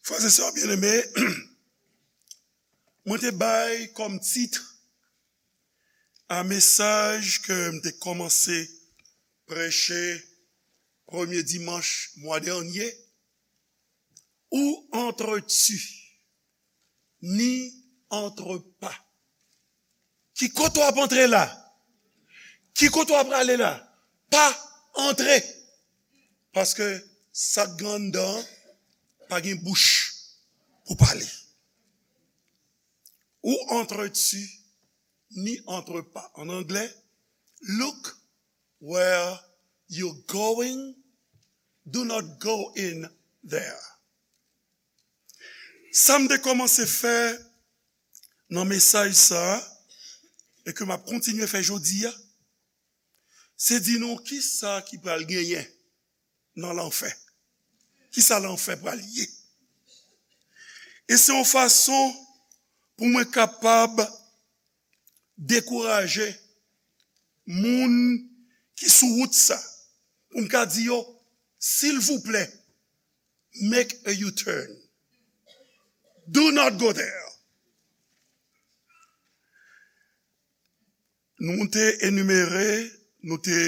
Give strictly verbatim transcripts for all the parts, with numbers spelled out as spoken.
Frè e sè byeneme, mwen te bay kòm tit a mesaj ke m te kòmanse preche premye dimanch mwa dènye, Où entres-tu? N'y entre pas. Ki kote w ap antre la? Ki kote w ap prale la? Pa antre. Paske sa k gen anndan an pa gen bouch pou pale. Où entres-tu? N'y entre pas. En anglais, look where you're going, do not go in there. Sa m te kòmanse fè nan mesaj sa a, e ke m ap kontinye fè jodi a, se di nou kisa ki pral genyen nan lanfè. Kisa lanfè pral ye? E se yon fason pou mwen kapab dekouraje moun ki sou wout sa, pou m ka di yo, silvouplè, make a U-turn. Do not go there. Nou te enimere, nou te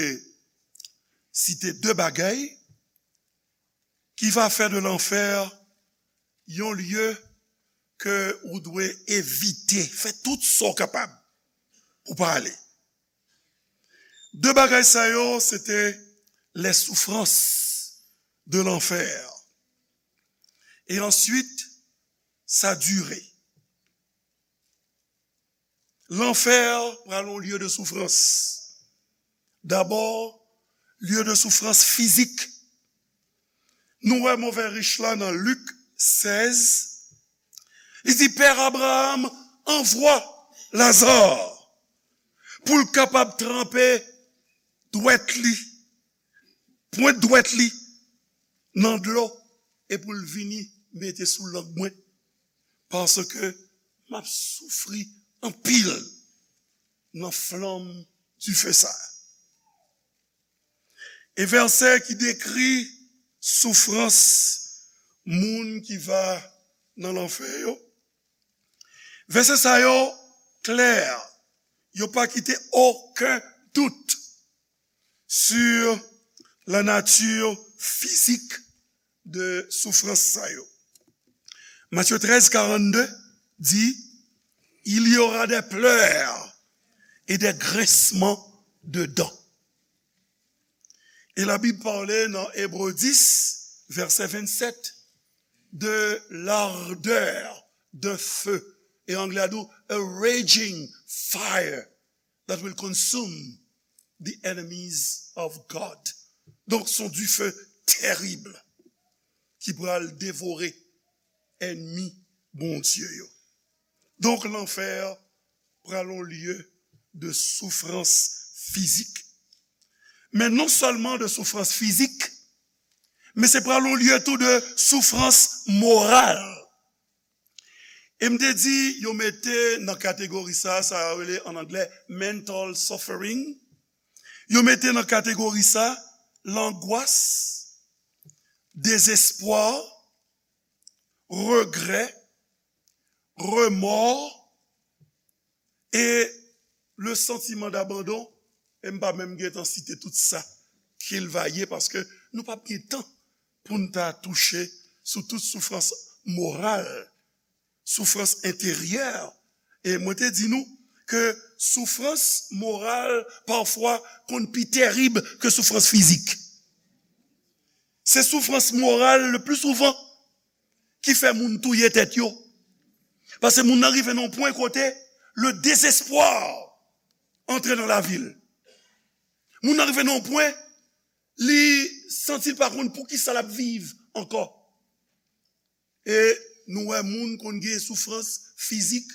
site de bagay ki va fè de lanfè yon lye ke ou dwe evite, fè tout sa w kapab pou pa ale. De bagay sa yo, se te les souffrances de l'enfer. E answit, sa dire. Lanfè pral yon lye de soufrans. Dabò, lye de soufrans fizik. Nou wè move rich la nan Lik sèz. Li di, Pè Abraram, anvwa Laza pou l kapab tranpe dwèt li, pwent dwèt li nan dlo, e pou l vini mete sou lang mwen, paske m ap soufri anpil nan flanm dife sa a. E vèsè ki dekri soufrans moun ki va nan lanfè yo. Vèsè sa yo klè, yo pa kite okenn dout sur la nature physique de soufrans sa yo. Matthieu treize quarante-deux di, Il y aura des pleurs et des grincements de dents. E Labib pale nan Ebre dis, vèsè vennsèt, de l'ardeur d'un feu. E anglè a di, a raging fire that will consume the enemies of God. Donk, se yon dife terib ki pral devore ènmi Bondye yo. Donk, lanfè pral yon lye de soufrans fizik. Men non sèlman de soufrans fizik, men se pral yon lye tou de soufrans moral. E m te di, yo mete nan kategori sa, sa yo rele an anglè mental suffering. Yo mete nan kategori sa, langwas, dezespwa, regrè, remò, e le sentiment d'abandon, e m pa menm gentan site tout sa ki l va ye, paske nou p ap gen tan pou n ta touche sou tout soufrans moral, soufrans enteryè. E mwen te di nou ke soufrans moral pafwa konn pi terib ke soufrans fizik. Se soufrans moral le pli souvan ki fè moun touye tèt yo. Paske moun nan rive nan yon pwen kote le désespoir antre nan lavi l. Moun nan rive nan yon pwen, li santi l pa konn poukisa l ap viv ankò. E nou wè moun konn gen soufrans fizik,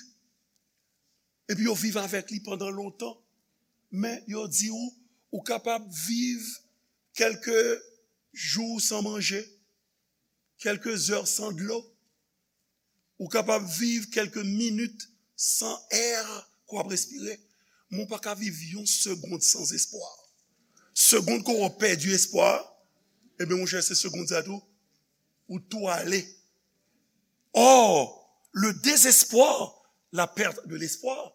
epi yo viv avèk li pandan lontan. Men yo di w, ou kapab viv kèlke jou san manje, kèlke zè san dlo, ou kapab viv kèlke minit san è ke w ap respire, men w pa ka viv yon segonn san espwa. Segonn ke w pèdi espwa, ebyen, monchè, se segonn sa tou, ou tou ale. Or, le désespoir, la perte de l'espoir,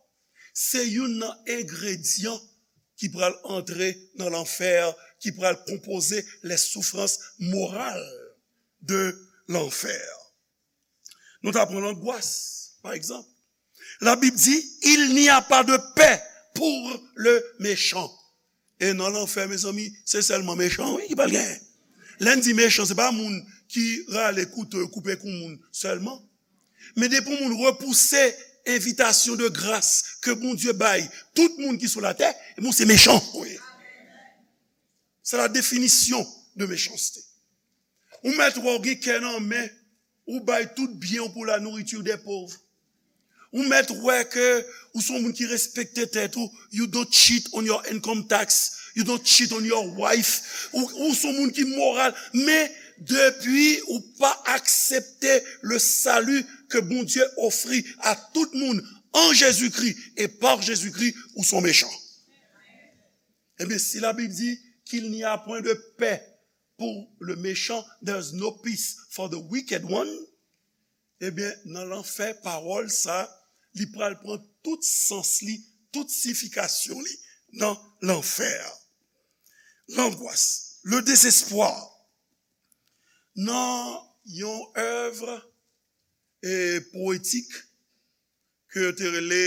se youn nan engredyan ki pral antre nan lanfè, ki pral konpoze les souffrances morales de l'enfer. Nou ta pran langwas, pa egzanp. La Bib di, il n'y a pas de paix pour le méchant. E nan lanfè, mezanmi, se sèlman mechan, wi, ki pral genyen. Lè n di mechan, se pa moun ki rale kouto yo koupe kou moun sèlman. Men depi yon moun repouse envitasyon de gras ke Bondye bay tout moun ki sou latè, ebyen, se mechan, wi. C'est la définition de méchanceté. Ou mèt wè w gen kè nan men, ou bay tout byen w pour la nourriture des pauvres. Ou mèt wè ke ou se yon moun ki respekte tèt ou, you don't cheat on your income tax, you don't cheat on your wife, ou, ou se yon moun ki moral, men depi ou pa aksepte le salut que Bondye ofri à tout moun en Jésus-Christ et par Jésus-Christ, ou se yon mechan. Ebyen, si la Bib di qu'il n'y a point de paix pour le méchant, there's no peace for the wicked one, ebyen, nan lanfè, pawòl sa, li pral pran tout sans li, tout siyifikasyon li nan lanfè. Langwas, le désespoir. Nan yon èv, e, powetik ke yo te rele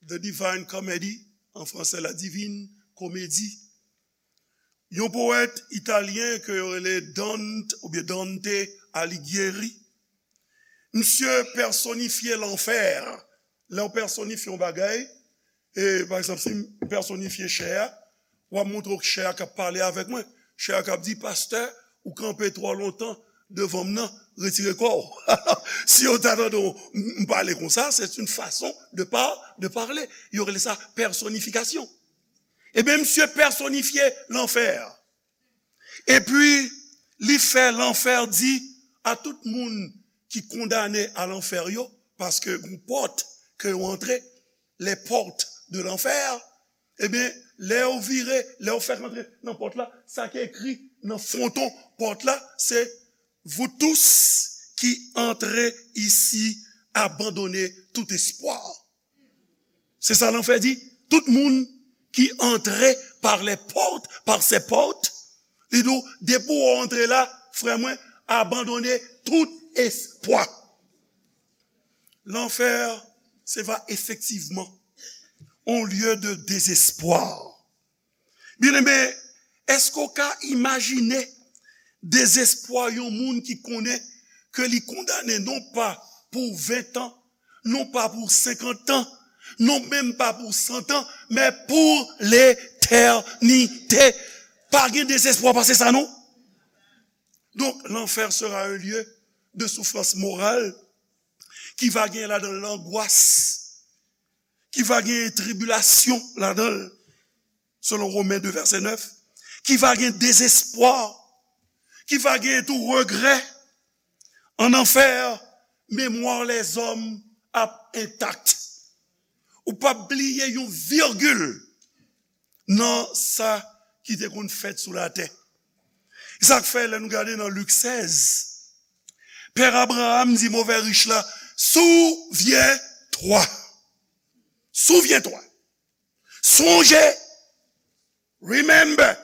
The Divine Comedy, an fransè, La Divine Comédie, yon powèt italyen ke yo rele Dante, oubyen Dante Alighieri, misye pèsonifye lanfè. Lè w pèsonifye yon bagay, e, pa egzanp, si m pèsonifye chè a, w ap montre w chè a k ap pale avèk mwen. Chè a k ap di, "Pastè, ou kanpe twò lontan devan m nan, retire kò w." Si yo ta tande w, m, m pale konsa, c'est une façon de par-, de parler. Yo rele sa pèsonifikasyon. Ebyen, misye pèsonifye lanfè. Epi, li fè lanfè di a tout moun ki kondane a lanfè yo, paske gon pòt ke yo antre, les portes de l'enfer, ebyen, lè yo vire, lè yo fèk antre nan pòt la, sa ki ekri nan fwonton pòt la, se, "Vous tous qui entrez ici, abandonnez tout espoir." Se sa lanfè di. Tout moun ki antre par les portes, par ces portes, li di w, depi w antre la, frè mwen, abandone tout espwa. Lanfè, se va efektivman on lye de dezespwa. Byeneme, èske w ka imajine dezespwa yon moun ki konnen ke li kondane non pa pou ven tan, non pa pou senkant tan, non menm pa pou san tan, men pou letènite? Pa gen dezespwa pase sa, non? Donc, l'enfer sera un lieu de souffrance morale, ki va gen ladan l langwas, ki va gen tribilasyon ladan l, selon Romen de vèsè nèf, ki va gen dezespwa, ki va gen tou regrè. An anfè, memwa lèzòm ap entak. Ou p ap bliye yon vigil nan sa ki te konn fèt sou latè. E sa k fè, lè nou gade nan Lik sèz, Pè Abraram di move rich la, "Souviens-toi. Souviens-toi. Sonje. Remember."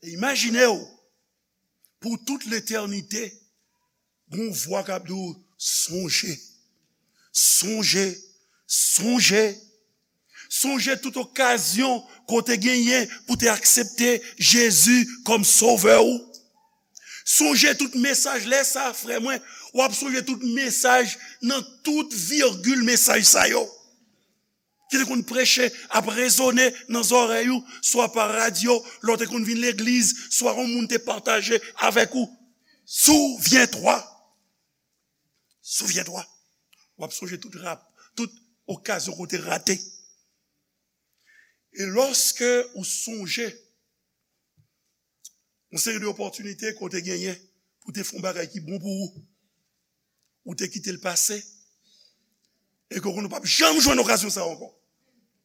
E imajine w, pou tout letènite, gon vwa k ap di w, "Sonje. Sonje. Sonje." Sonje tout okazyon ke w te genyen pou w te aksepte Jezi kòm sovè w. Sonje tout mesaj, lè sa, frè mwen, w ap sonje tout mesaj nan tout vigil mesaj sa yo ki te konn preche ap rezone nan zòrèy ou, swa pa radyo, lè w te konn vin legliz, swa yon moun te pataje avèk ou. Souviens-toi. Souviens-toi. W ap sonje tout rap, tout okazyon ke w te rate. E lòske ou sonje yon seri de opòtinite ke w te genyen pou w te fè yon bagay ki bon pou ou, ou te kite l pase, e ke w konnen w p ap janm jwenn okazyon sa a ankò.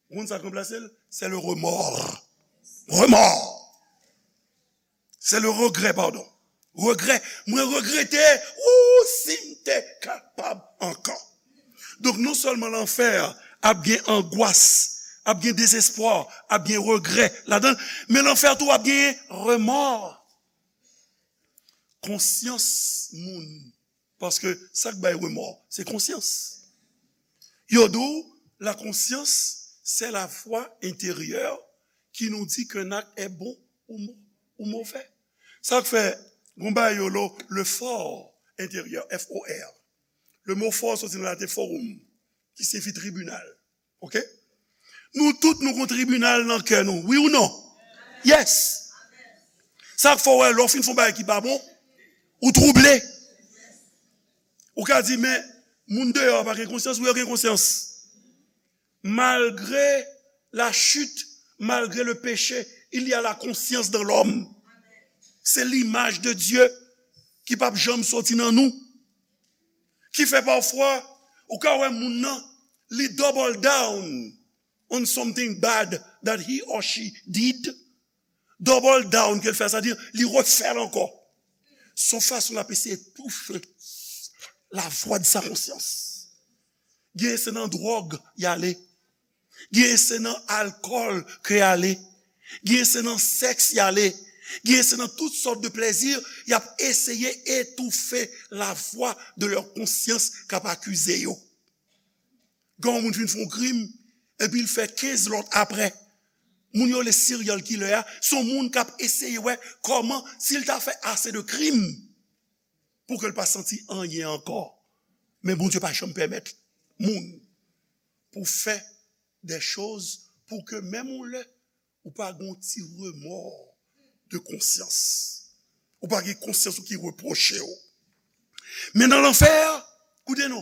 Ou konn sa k ranplase l? C'est le remords. Remords. C'est le regret, pardon. Regrè. Mwen regrete, ou, si m te kapab ankò. Donk, non sèlman lanfè ap gen angwas, ap gen dezespwa, ap gen regrè ladan l, men lanfè tou ap gen remò. Konsyans moun. Paske sa k bay remò, se konsyans. Yo di w, la conscience, c'est la voix intérieure qui nous dit qu'un acte est bon ou, mo- ou mauvais. Sa k fè, gon bagay yo lo, le for intérieur, F O R. Le mo for soti nan laten forum, ki siyifi tribinal. Oke? Nou tout nou gon tribinal nan kè nou. Wi ou non? Yes. Sa k fè w wè lè w fin fè yon bagay ki pa bon, ou twouble. Ou ka di, men, moun deyò a pa gen konsyans, wi, yo gen konsyans. Malgré la chute, malgré le péché, il y a la conscience dans l'homme. C'est l'image de Dieu ki p ap janm soti nan nou. Ki fè pafwa, ou ka wè moun nan, li double down on something bad that he or she did. Double down ke l fè, sa di, li refè l ankò. Se yon fason l ap eseye toufe la vwa de sa konsyans. Gen se nan dwòg y ale. Gen se nan alkòl ke y ale. Gen se nan sèks y ale. Gen se nan tout sòt de plezi, y ap eseye etoufe la vwa de lè konsyans k ap akize yo. Gen yon moun fin fè yon krim, epi l fè kenz lòt apre. Moun yo le serial killer a, se yon moun k ap eseye wè kòman, si l ta fè ase de krim, pou ke l pa santi anyen ankò. Men Bondye pa janm pèmèt moun pou fè de choz pou ke menm yon lè, ou pa gen yon ti remò de konsyans. Ou pa gen konsyans ou ki repwoche w. Men nan lanfè, koute non,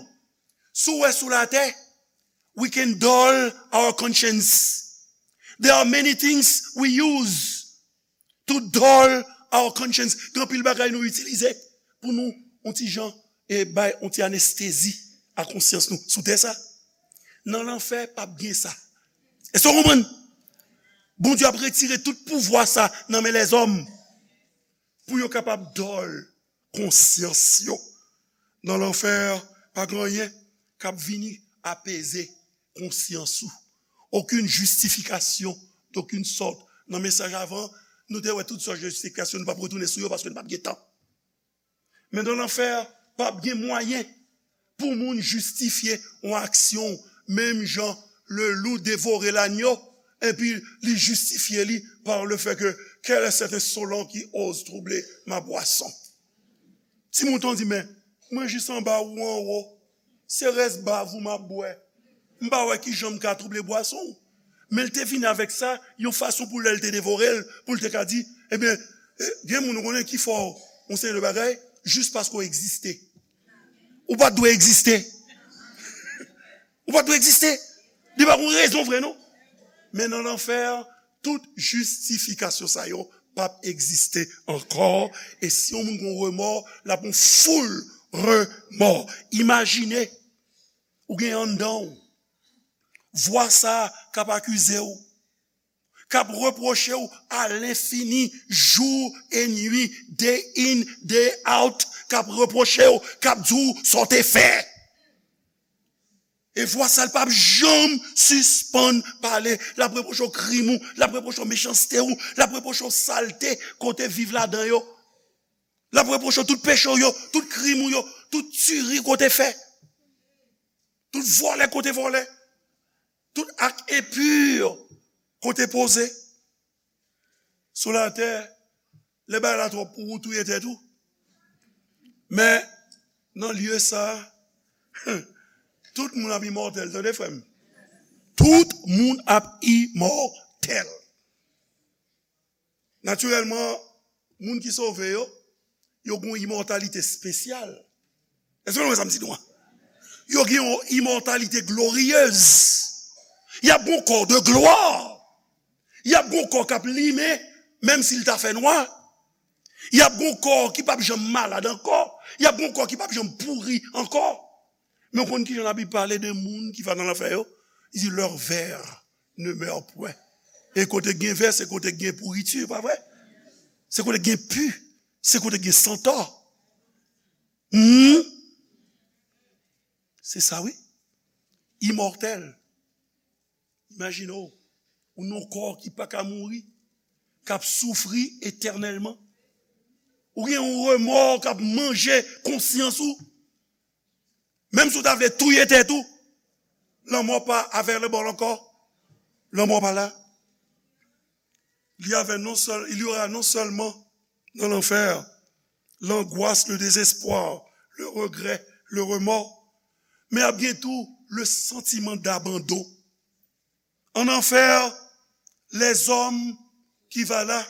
si w wè sou latè, we can dull our conscience. There are many things we use to dull our conscience. Gen anpil bagay nou itilize pou nou, yon ti jan, e bay yon ti anestezi a konsyans nou sou tè sa. Nan lanfè, p ap gen sa. Èske w konprann? Bondye ap retire tout pouvwa sa nan men lèzòm pou yo kapab dull konsyans yo. Nan lanfè, pa gen anyen k ap vini apeze konsyans ou. Okenn jistifikasyon d'okenn sòt. Nan mesaj avan, nou te wè tout sòt jistifikasyon, nou p ap retounen sou yo paske nou p ap gen tan. Men nan lanfè, p ap gen mwayen pou moun jistifye yon aksyon, menm jan le loup dévorait l'agneau, epi li jistifye li par le fait que quel est cet insolent qui ose troubler ma boisson? Ti mouton di, men, mwen jis anba ou anwo, se rès bav ou m ap bwè. M pa wè kijan m ka twouble bwason w. Men l te vini avèk sa, yon fason pou lè l te devore l, pou l te ka di, ebyen, eh, gen moun ou konnen ki fè w yon seri de bagay, jis paske w egziste. Ou pa t dwe egziste. Ou pa t dwe egziste. Li pa gen rezon vre, non. Men nan lanfè, tout jistifikasyon sa yo p ap egziste ankò. E si yon moun gen remò, l ap gen foul remò. Imajine, ou gen anndan w vwa sa k ap akize w, k ap repwoche w a lenfini, jou e nwi, day in, day out, k ap repwoche w, k ap di w sa w te fè. E vwa sa l p ap janm sispann pale. L ap repwoche w krim ou, l ap repwoche w mechanste ou, l ap repwoche w salte kote viv ladan yo. L ap repwoche w tout peche w yo, tout krim ou yo, tout tiri kote fè. Tout vòlè kote vòlè. Tout ak enpi kote poze. Sou latè, lè bagay la twòp pou ou, touye tèt ou. Men, nan lye sa, tout moun ap imòtèl, tande frè m. Tout moun ap imòtèl. Natirèlman, moun ki sove yo, yo gen yon imòtalite espesyal. Èske nou wè sa m di nou an? Yo gen yon imòtalite gloriyez. Y ap gen yon kò de glwa. Y ap gen yon kò k ap limen, menm si l ta fè nwa. Y ap gen yon kò ki p ap janm malad ankò. Y ap gen yon kò ki p ap janm pouri ankò. Men w konn kijan Labib pale de moun ki va nan lanfè yo? Li di, leurs vers ne meurent point. E kote k gen vè, se kote k gen pouriti, pa vre? Se kote k gen pi. Se kote gen santò. Hmm? Se sa, wi. Imòtèl. Imajine w, ou nan yon kò ki pa ka mouri, k ap soufri etènèlman. Ou gen yon remò k ap manje konsyans ou. Menm si w ta vle touye tèt ou, lanmò pa available ankò. Lanmò pa la. Il y avait non seul, il y aura non seulement dans l'enfer l'angoisse, le désespoir, le regret, le remords, men ap gen tou le sentiment d'abandon. En enfer, les hommes qui va là,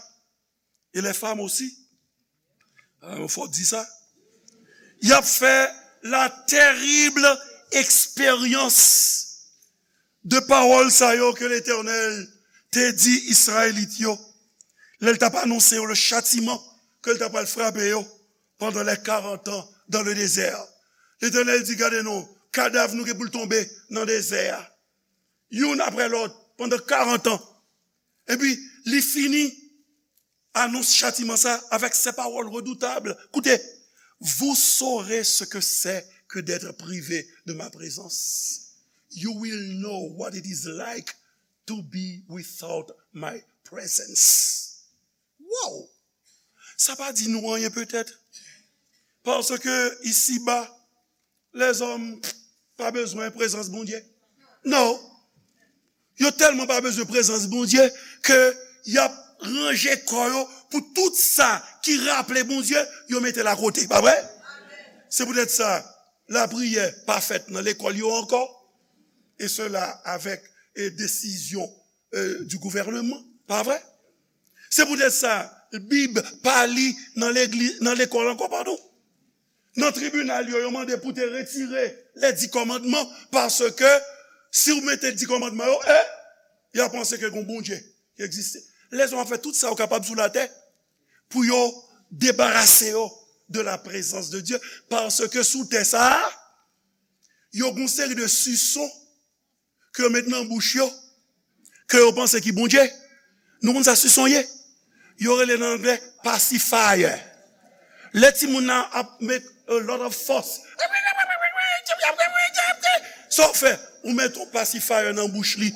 et les femmes aussi, ah, fò di sa, y ap fè la terrible expérience de pawòl sa yo ke Letènèl te di Izrayelit yo, lè l t ap anonse yo le châtiment ke l t ap pral frape yo pendant les quarante ans dans le désert. Letènèl di, gade non, kadav nou gen pou l tonbe nan dezè a, youn apre lòt, pandan karant an. Epi, li fini anons chatiman sa avèk se pawòl redoutab. Koute, vous saurez ce que c'est que d'être privé de ma présence. You will know what it is like to be without my presence. Wow! Sa pa di nou anyen petèt? Paske isiba, lèzòm pa bezwen prezans Bondye. Non. Yo tèlman pa bezwen prezans Bondye ke y ap ranje kò yo pou tout sa ki raple Bondye, yo mete l akote. Pa vre? Se poutèt sa, lapriyè pa fèt nan lekòl yo ankò. E sela avèk, e, desizyon, e, du gouvènman. Pa vre? Se poutèt sa, Bib pa li nan legliz, nan lekòl ankò, padon. Nan tribinal yo, yo mande pou te retire les dix commandements, paske si w mete dis kòmandman yo, e, y a panse ke gon Bondye ki egziste. Lèzòm ap fè tout sa yo kapab sou latè pou yo debarase yo de la présence de Dieu, paske sou tè sa a, yo gon seri de sison ke yo met nan bouch yo, ke yo panse ki Bondye. Nou konn sa sison ye? Yo rele nan anglè pacifier. Lè timoun nan ap make a lot of fuss, sa w fè? Ou met yon pacifier nan bouch li.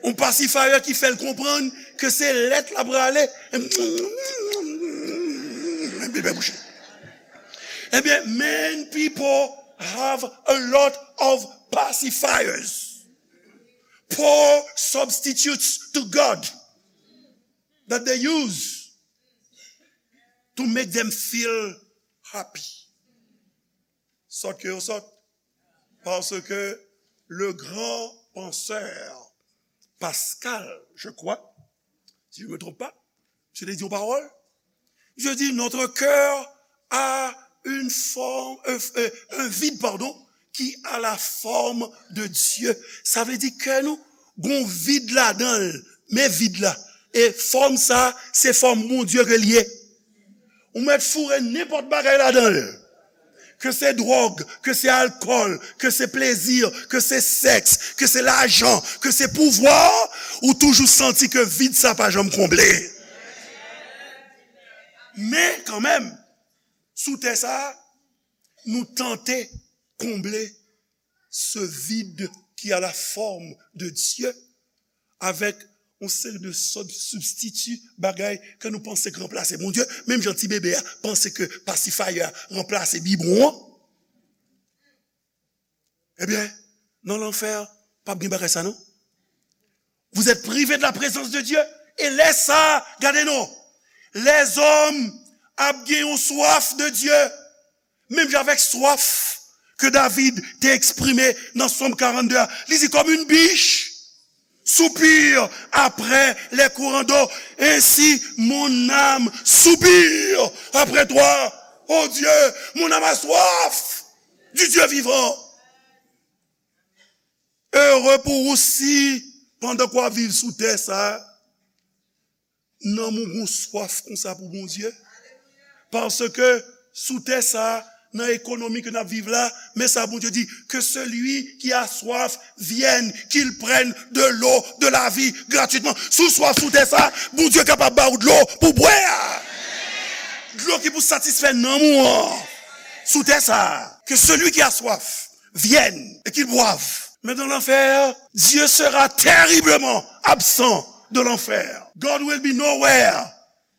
Yon pacifier ki fè l konprann ke se lèt l ap rale. Epi bouch li. Ebyen, many people have a lot of pacifiers, poor substitutes to God that they use to make them feel happy. Sòt ke yo sòt. Paske le grand penseur Pascal, je crois, si je me trompe pas, misye te di yon pawòl. Je dis, notre cœur a une forme, euh, euh, un vide, pardon, qui a la forme de Dieu. Sa vle di kè nou gon vid ladan l, men vid la. E fòm sa, se fòm Bondye ke l ye. Ou mèt foure nenpòt bagay ladan l. Ke se dwòg, ke se alkòl, ke se plezi, ke se sèks, ke se lajan, ke se pouvwa, ou toujou santi ke vid sa pa janm konble. Men kanmenm, sou tè sa, nou tante konble ce vide qui a la forme de Dieu avec yon seri de sòt sibstiti, bagay ke nou panse k ranplase Bondye, menm jan ti bebe a panse ke pacifier a ranplase bibwon an. Ebyen, nan lanfè, p ap gen bagay sa non. Vous êtes privés de la présence de Dieu. E lè sa, gade non, lèzòm ap gen yon swaf de Dye. Menm jan avèk swaf ke David te eksprime nan Sòm karannde a, li di, comme une biche soupire après les courants d'eau, ainsi mon âme soupire après toi, ô Dieu, mon âme a soif du Dieu vivant. Ere pou ou si, pandan ke w ap viv sou tè sa a, nanm ou gon swaf konsa pou Bondye. Paske sou tè sa a, nan ekonomi ke n ap viv la, men sa Bondye di, que celui qui a soif vienne, qu'il prenne de l'eau de la vie gratuitement. Si w swaf sou tè sa a, Bondye kapab ba ou dlo pou bwè a. Dlo ki pou satisfè nanm ou an sou tè sa a. Que celui qui a soif vienne et qu'il boive. Mais dans l'enfer, Dieu sera terriblement absent de l'enfer. God will be nowhere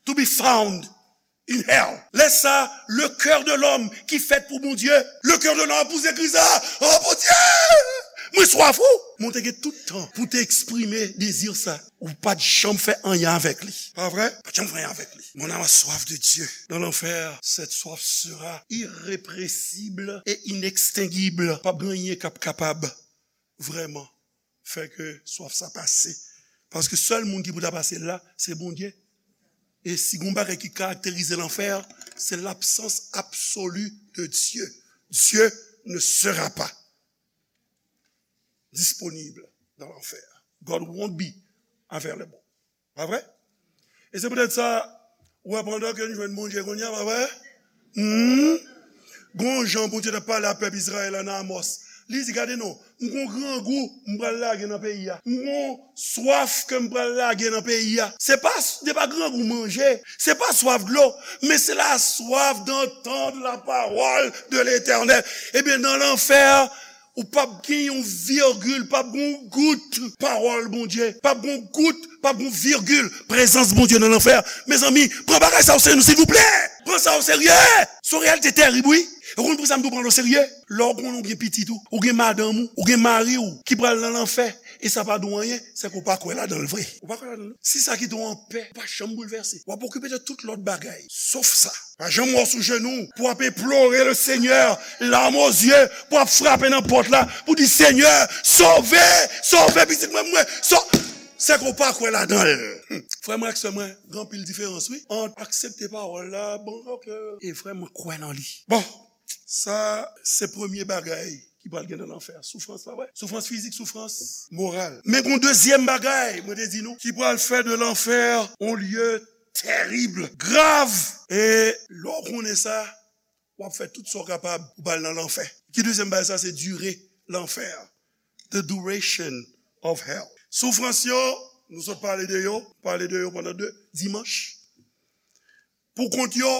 to be found in hell. Lè sa, le cœur de l'homme ki fèt pou Bondye, le cœur de l'homme pou se kri sa, oh Bondye, mwen swaf ou. Mwen te gen tout tan pou te eksprime dezi sa. Ou pa t janm fè anyen avèk li. Pa vre? Pa t janm fè anyen avèk li. Mon âme a soif de Dieu. Dans l'enfer, cette soif sera irrépressible et inextinguible. P ap gen anyen k ap kapab vrèman fè ke swaf sa pase. Paske sèl moun ki pou ta pase l la, se Bondye. E si gon bagay ki karakterize lanfè, se l'absence absolue de Dieu. Dieu ne sera pas disponible dans l'enfer. God won't be available. Pa vre? E se poutèt sa, ou wè pandan ke n jwenn Bondye kounye a, pa vre? Hmm? Gon jan Bondye t ap pale a pèp Izrayèl la nan Amòs. Li di, gade non, m gon grangou m pral lage nan peyi a. M gon swaf ke m pral lage nan peyi a. Se pa, se pa grangou manje, se pa swaf dlo, men se la soif d'entendre la parole de l'Éternel. Ebyen, nan lanfè, ou p ap gen yon virgil, p ap gen yon gout pawòl Bondye, p ap gen yon gout, p ap gen yon virgil prezans Bondye nan lanfè. Mezanmi, pran bagay sa o serye, silvouplè. Pran sa o serye. Se yon reyalite terib, wi. E w konn pou sa m di w pran l o serye? Lè w konnen w gen pitit ou, ou gen madanm ou, ou gen mari w ki pral nan lanfè, e sa pa di w anyen, se ke w pa kwè ladan l vre. Ou pa kwè ladan l. Si sa kite w anpè, ou pa janm boulvèse. W ap okipe de tout lòt bagay, sof sa. Pa janm wè w sou jenou pou w ap implore le Seigneur, larmes aux yeux, pou w ap frape nan pòt la, pou w di, Seigneur, sove, sove pitit mwen, mwen, so-, se ke w pa kwè ladan l. Hmm. Frè mwen ak sè mwen, gen anpil diferans, wi, ant aksepte pawòl la, bon, ok, e vrèman kwè nan li. Bon, sa, se premye bagay ki pral gen nan lanfè. Soufrans, pa vre? Soufrans fizik, soufrans moral. Men gon dezyèm bagay, mwen te di nou, ki pral fè de lanfè yon lye terib, grav. E lè w konnen sa, w ap fè tout sa w kapab pou w pa al nan lanfè. Ki dezyèm bagay sa? Se dire lanfè. The duration of hell. Soufrans yo, nou sot pale de yo, pale de yo pandan de dimanch. Pou kont yo,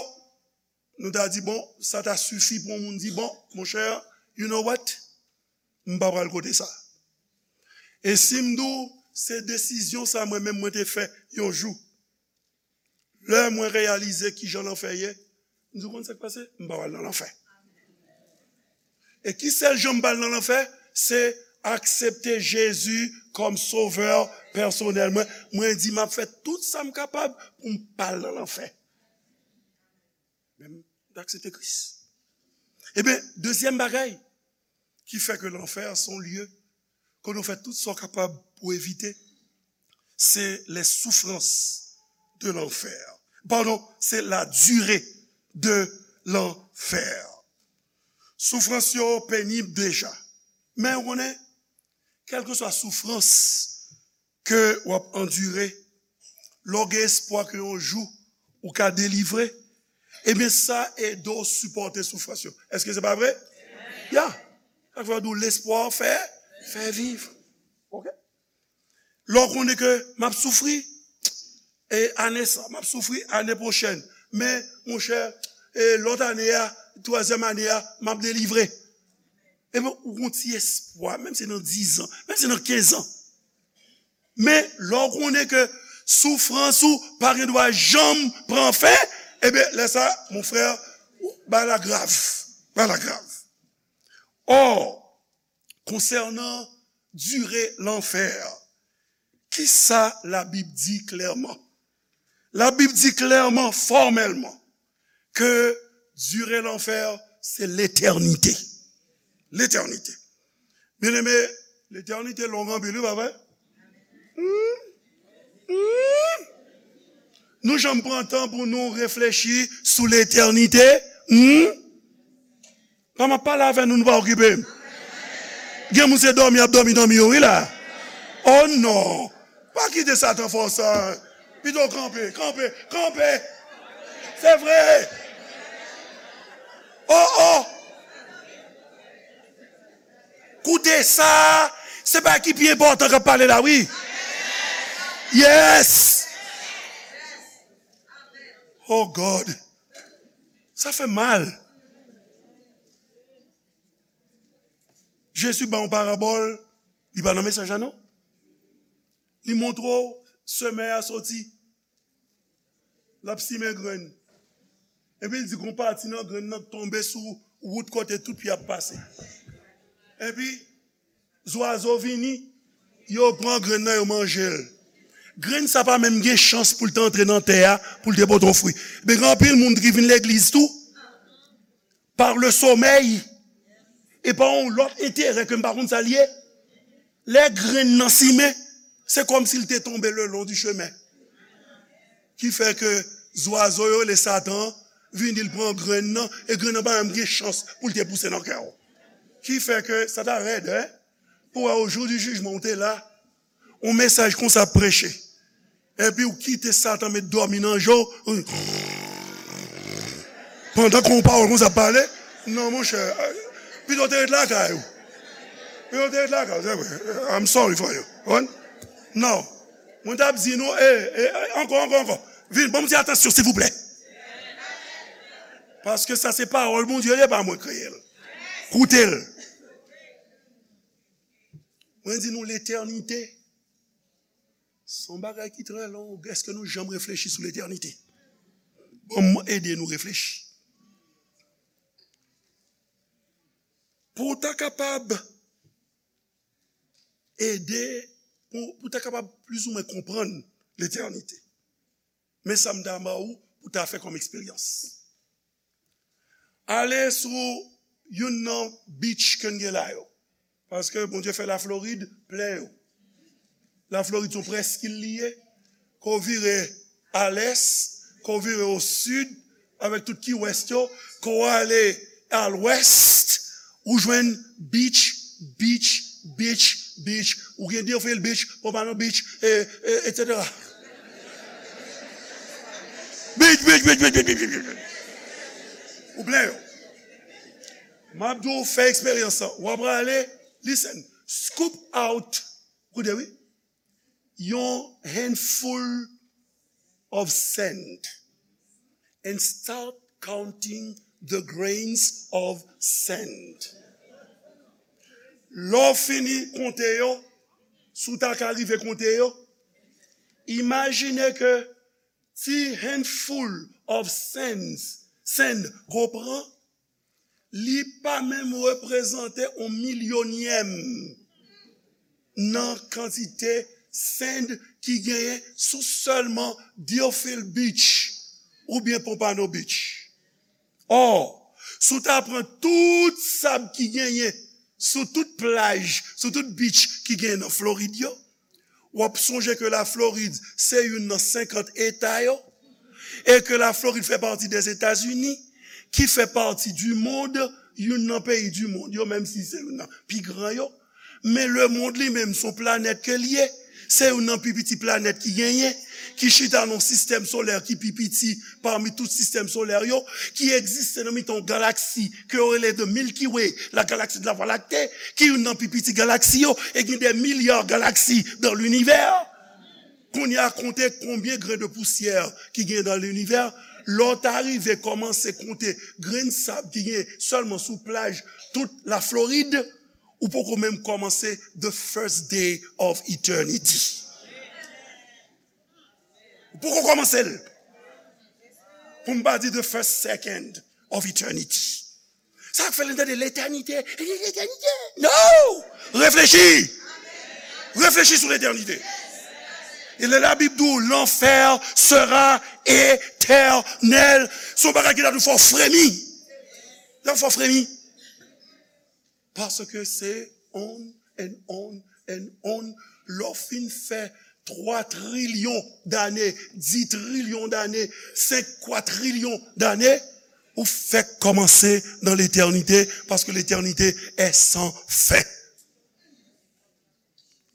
nou ta di, bon, sa ta sifi pou yon moun di, bon, monchè, you know what? M pa pral kote sa. E si m di w, se desizyon sa mwen menm mwen te fè yon jou. Lè mwen reyalize kijan lanfè ye, m di, w konn sa k pase? M pa pral nan lanfè. E ki sèl jan m pa al nan lanfè? Se aksepte Jezi kòm sovè pèsonèl mwen. Mwen di, m ap fè tout sa m kapab pou m pa al nan lanfè. Men m aksepte Kris. Ebyen, dezyèm bagay ki fè ke lanfè se yon lye kote w fè tout sa w kapab pou evite, se les souffrances de l'enfer. Padon, se la durée de l'enfer. Soufrans yo penib deja. Men ou konnen, kèlkeswa soufrans ke w ap andire, lè w gen espwa ke yon jou ou ka delivre, ebyen, sa ede w sipòte soufrans yo. Èske se pa vre? Ya. Sa k fè yo di w, lespwa fè, fè viv. Oke? Lè w konnen ke m ap soufri, e ane sa, m ap soufri ane pwochèn. Men, monchè, e lòt ane a, twazyèm ane a, m ap delivre. Ebyen, ou gon ti espwa, menm si se nan diz an, menm si se nan kenz an. Men, lè w konnen ke soufrans ou pa gen dwa janm pran fen, ebyen, lè sa, mon frè, ou, bagay la grav. Bagay la grav. Ò, konsènan dire lanfè, kisa Labib di klèman? Labib di klèman, fòmèlman, ke dire lanfè, se letènite. Letènite. Byeneme, letènite long anpil, wi, pa vre? Hmm? Hmm? Nou janm pran tan pou nou reflechi sou letènite? Hmm? Kòman m ap pale avè nou, nou pa okipe m? Gen moun se dòmi y ap dòmi, dòmi yo, wi, la. Oh non! Pa kite Satan fè w sa. Pito kanpe, kanpe, kanpe. Se vre. Oh, oh. Koute sa. Se bagay ki pi enpòtan k ap pale la, wi. Yes. Oh God. Sa fè mal. Jezi ba yon parabòl, li pa nan mesaj la non. Li montre w semè a soti, l ap simen grenn. Epi l di gon pati nan grenn nan tonbe sou wout kote tout pye ap pase. Epi zwazo vini, yo pran grenn nan, yo manje l. Grenn sa pa menm gen chans pou l te antre nan tè a, pou l te pote yon fwi. Men gen anpil moun ki vin legliz tou, par le sommeil, e pa yon lòt enterè ke m pa konn sa l ye. Lè grenn nan simen, se kòmsi l te tonbe le long du chemin. Ki fè ke zwazo yo rele Satan vini, l pran grenn nan, e grenn nan pa menm gen chans pou l te pouse nan kè w. Ki fè ke sa ta rèd, en? Pou wè, o jou di jijman, ou te la, yon mesaj konsa ap preche. Epi ou kite Satan met dòmi nan je w. Pandan ke yon pawòl konsa ap pale, non, monchè, pito w te ret lakay ou. Pito w te ret lakay ou, se vre. I'm sorry for you. Konprann? Non. Mwen t ap di nou, e, e, ankò, ankò, ankò. Vin, ban m ti atansyon, silvouplè. Paske sa se pawòl Bondye, e pa mwen kreye l. Koute l. Mwen di nou, letènite, se yon bagay ki trè long. Èske nou janm reflechi sou letènite? Bon, mwen ede nou reflechi. Pou w ta kapab ede, pou, pou w ta kapab plizoumwen konprann letènite. Men sa m ta ba ou pou ta fè kòm eksperyans. Ale sou youn nan beach ke n gen la yo. Paske Bondye fè Laflorid plen yo. Laflorid se yon prèskil li ye. Ke w vire a lès, ke w vire o sid, avèk tout Key West yo, ke w ale a lwès, ou jwenn beach, beach, beach, beach. Ou gen Deerfield Beach, Pompano Beach, e, e, et cetera. Beach, beach, beach, beach, beach, beach, beach. Ou plen yo. M ap di w fè eksperyans lan. W ap prale, listen, scoop out, koute wi, yon handful of sand and start counting the grains of sand. Lè w fini konte yo, si w ta ka rive konte yo, imajine ke ti handful of sands, sand, ke w pran, li pa menm reprezante yon milyonyèm nan kantite sand ki genyen sou sèlman Deerfield Beach oubyen Pompano Beach. Ò, si w ta pran tout sab ki genyen sou tout plaj, sou tout beach ki genyen nan Florid yo, w ap sonje ke Laflorid se youn nan senkant eta yo, e ke Laflorid fè pati dèzetazini, ki fè pati di mond, youn nan peyi di mond yo, menm si se youn nan pi gran yo. Men lemonn li menm se yon planèt ke l ye. Se youn nan pi piti planèt ki genyen, ki chita nan yon sistèm solè ki pi piti pami tout sistèm solè yo, ki egziste nan mitan yon galaksi ke yo rele the Milky Way, la galaxie de la Voie lactée, ki youn nan pi piti galaksi yo, e gen des milliards galaxies dans l'univers. Kounye a, konte konbyen grenn de pousyè ki gen dans l'univers. Lè w ta rive kòmanse konte grenn sab ki gen sèlman sou plaj tout Laflorid, ou poko menm kòmanse the first day of eternity. Ou poko kòmanse l. Pou m pa di the first second of eternity. Sa k fè lè n tande letènite, letènite. No! Reflechi! Reflechi sou letènite. E lè Labib di w, l'enfer sera éternel, se yon bagay ki ta dwe fè w fremi. Li ta dwe fè w fremi. Paske se on and on and on. Lè w fin fè twa trilyon dane, dis trilyon dane, senk kwatrilyon dane, ou fèk kòmanse nan letènite, paske letènite est sans fin.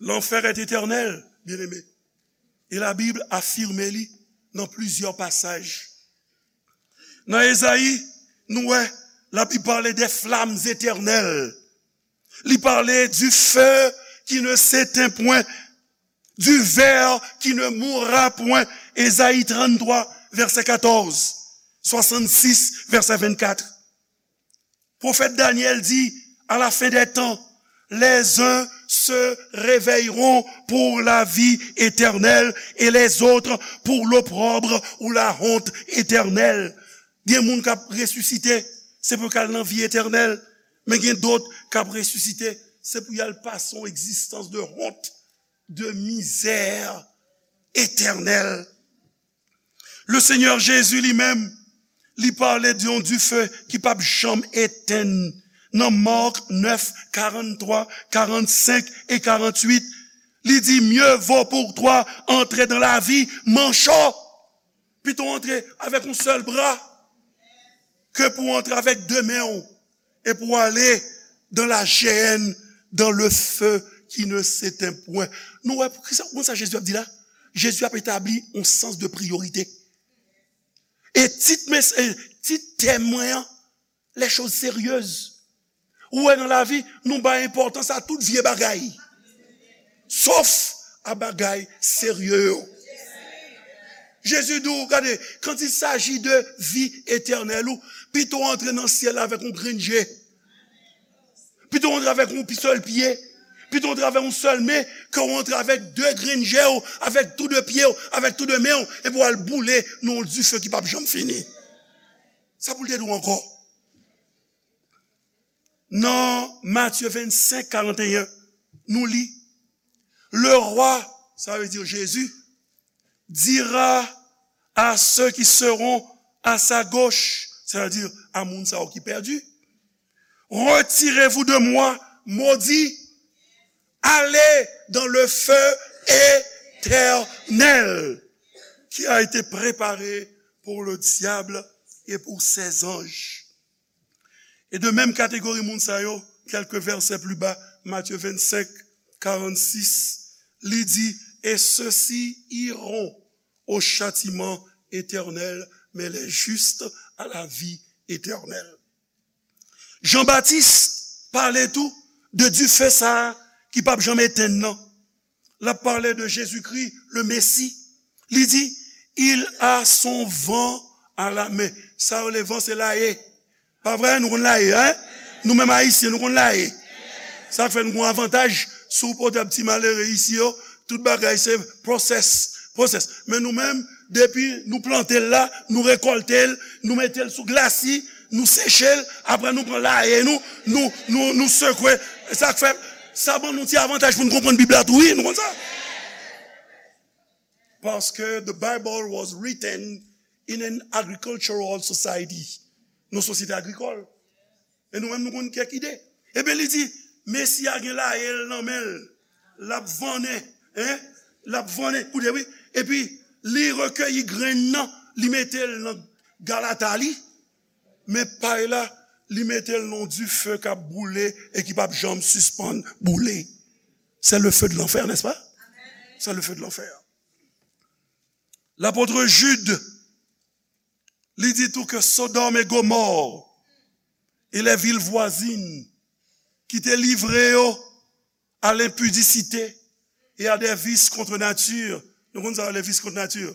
L'enfer est éternel, bien-aimé. Et la Bible affirme li nan plizyè pasaj. Nan Ezayi, nou wè, Labib pale des flammes éternelles. Li pale du feu qui ne s'éteint point, du ver qui ne mourra point. Ezayi tranntwa, vèsè katòz. swasann sis, vèsè vennkat. Pwofèt Danyèl di, à la fin des temps, les uns se réveilleront pour la vie éternelle et les autres pour l'opprobre ou la honte éternelle. Gen moun k ap resisite, se pou y al nan vi etènèl, men gen dòt k ap resisite, se pou y al pase yon egzistans de honte, de misère éternelle. Le Senyè Jezi li menm, li pale de yon dife ki p ap janm etenn. Nan Mark nèf, karanntrwa, karannsenk e karannwit, li di, mieux vaut pour toi entrer dans la vie manchot. Pito antre avèk yon sèl bra ke pou antre avèk de men w e pou ale dans la géhenne, dans le feu qui ne s'éteint point. Nou wè, kisa, konn sa Jezi ap di la? Jezi ap etabli yon sans de priyorite. E tit, mes, e tit tèm mwen an, les choses sérieuses. Ou wè, nan lavi, nou bay enpòtans a tout vye bagay. Sof a bagay serye yo. Jezi di w, gade, quand il s'agit de vie éternelle, ou pito antre nan syèl la avèk yon grenn je. Pito antre avèk yon sèl pye. Pito antre avèk yon sèl men, ke w antre avèk de grenn je w, avèk tou de pye w, avèk tou de men w, epi w al boule nan yon dife ki p ap janm fini. Sa pou l te di w ankò? Nan Matye vennsenk, karanteyen, nou li, le roi, sa vle di Jezi, dira à ceux qui seront à sa gauche, c'est-à-dire à moun sa yo ki pèdi, retirez-vous de moi, maudits, allez dans le feu éternel qui a été préparé pour le diable et pour ses anges. E de menm kategori moun sa yo, kèlke vèsè pli ba, Matye vennsenk, karannsis, li di, et ceux-ci iront au châtiment éternel, mais les justes à la vie éternelle. Jan Batis pale tou de dife sa a ki p ap janm etenn nan. L ap pale de Jezikri, le Mesi. Li di, il a son vent à la main. Sa yo rele van, se laye. Pa vre, nou konn laye, en? Nou menm Ayisyen, nou konn laye. Sa fè nou gon avantaj, si w pote ti malere isi yo, tout bagay se process, process. Men nou menm, depi nou plante l la, nou rekòlte l, nou mete l sou glasi, nou seche l, apre nou pran laye nou, nou, nou, nou sekwe. Sa k fè, sa ban nou ti avantaj pou nou konprann Bib la tou, wi, nou konn sa. Paske the Bible was written in an agricultural society. Nou sosyete agrikòl. E nou menm nou konn kèk ide. Ebyen li di, Mesi a gen laye l nan men l. L ap vannen, en? L ap vannen, koute wi. Epi li rekeyi grenn nan, li mete l nan galata li. Men pay la, li mete l nan dife k ap boule e ki p ap janm sispann boule. C'est le feu de l'enfer, n'est-ce pas? C'est le feu de l'enfer. Lapot Jid, li di tou ke Sodòm e Gomò e les villes voisines ki te livre yo à l'impudicité et à des vices contre nature. Nou konn sa yo, les vices contre nature?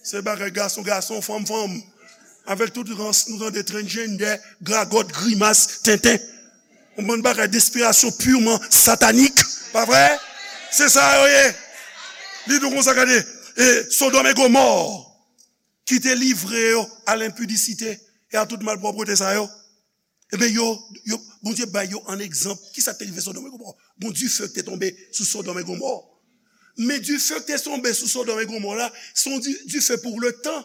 Se bagay gason gason, fanm fanm. Avèk tout rans nou tande transgender, gragòt, grimas, tenten. Yon bann bagay d'inspiration purement satanique, pa vre? Se sa yo ye. Li di w konsa, gade, e Sodòm e Gomò ki te livre yo à l'impudicité et à tout malpwòpte sa yo. Ebyen, yo, yo, Bondye bay yo an egzanp. Kisa k te rive Sodòm e Gomò? Gon dife ki te tonbe sou Sodòm e Gomò. Men dife ki te tonbe sou Sodòm e Gomò la, se yon di-, dife pou le tan.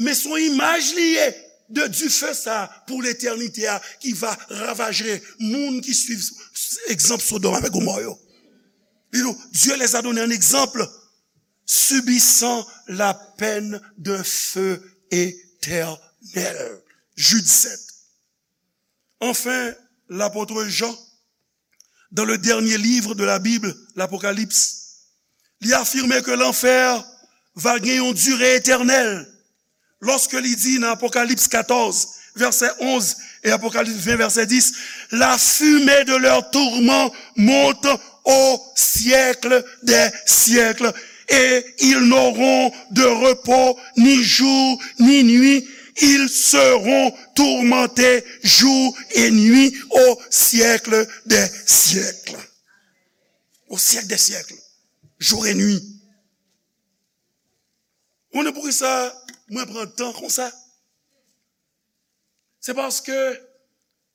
Men se yon imaj li ye de dife sa pou letènite a ki va ravaje moun ki swiv egzanp Sodòm avèk Gomò yo. Li di, Dieu les a donné un exemple, subissant la peine d'un feu éternel. Jude sept. Enfin, l'apôtre Jean, dans le dernier livre de la Bible, l'Apocalypse, li afime ke lanfè va gen yon dire etènèl. Lòske li di nan Apokalips katòz, vèsè onz, e Apokalips ven, vèsè dis, la fumée de leur tourment monte au siècle des siècles, et ils n'auront de repos ni jour ni nuit, Ils seront tourmentés jour et nuit au siècle des siècles. Au siècle des siècles. Jour et nuit. Ou konnen poukisa mwen pran tan konsa? Se paske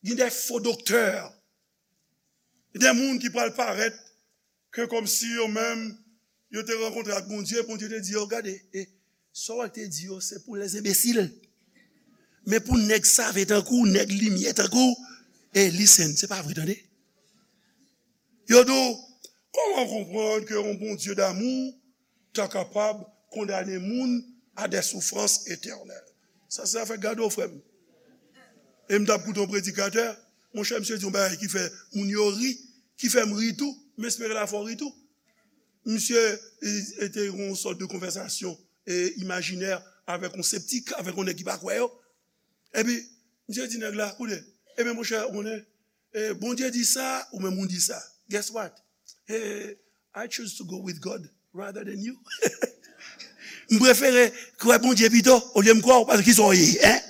gen de fo doktè, de moun ki pral parèt ke kòmsi yo menm, yo te rankontre ak Bondye, Bondye te di yo, gade, e, sa w te di yo, se pou lèzenbesil. Men pou nèg save tankou, nèg limyè tankou, e listen, se pa vre, tande. Yo di w, kòman w konprann ke yon Bondye damou ta kapab kondane moun a des souffrances éternelles? Sa se afè gado, frè m. E m t ap koute yon predikatè, monchè, misye di yon bagay ki fè moun yo ri, ki fè m ri tou, m espere l a fè w ri tou. Misye, e, e te yon sòt de konvèsasyon, e, imajinè avèk yon septik, avèk yon nèg ki pa kwè yo. Epi, misye di nèg la, koute, ebyen, monchè, ou konnen, e, Bondye di sa, ou menm ou di sa. Guess what? E, I choose to go with God rather than you. M prefere kwè Bondye pito, olye m kwè w, paske kisa w ye, en?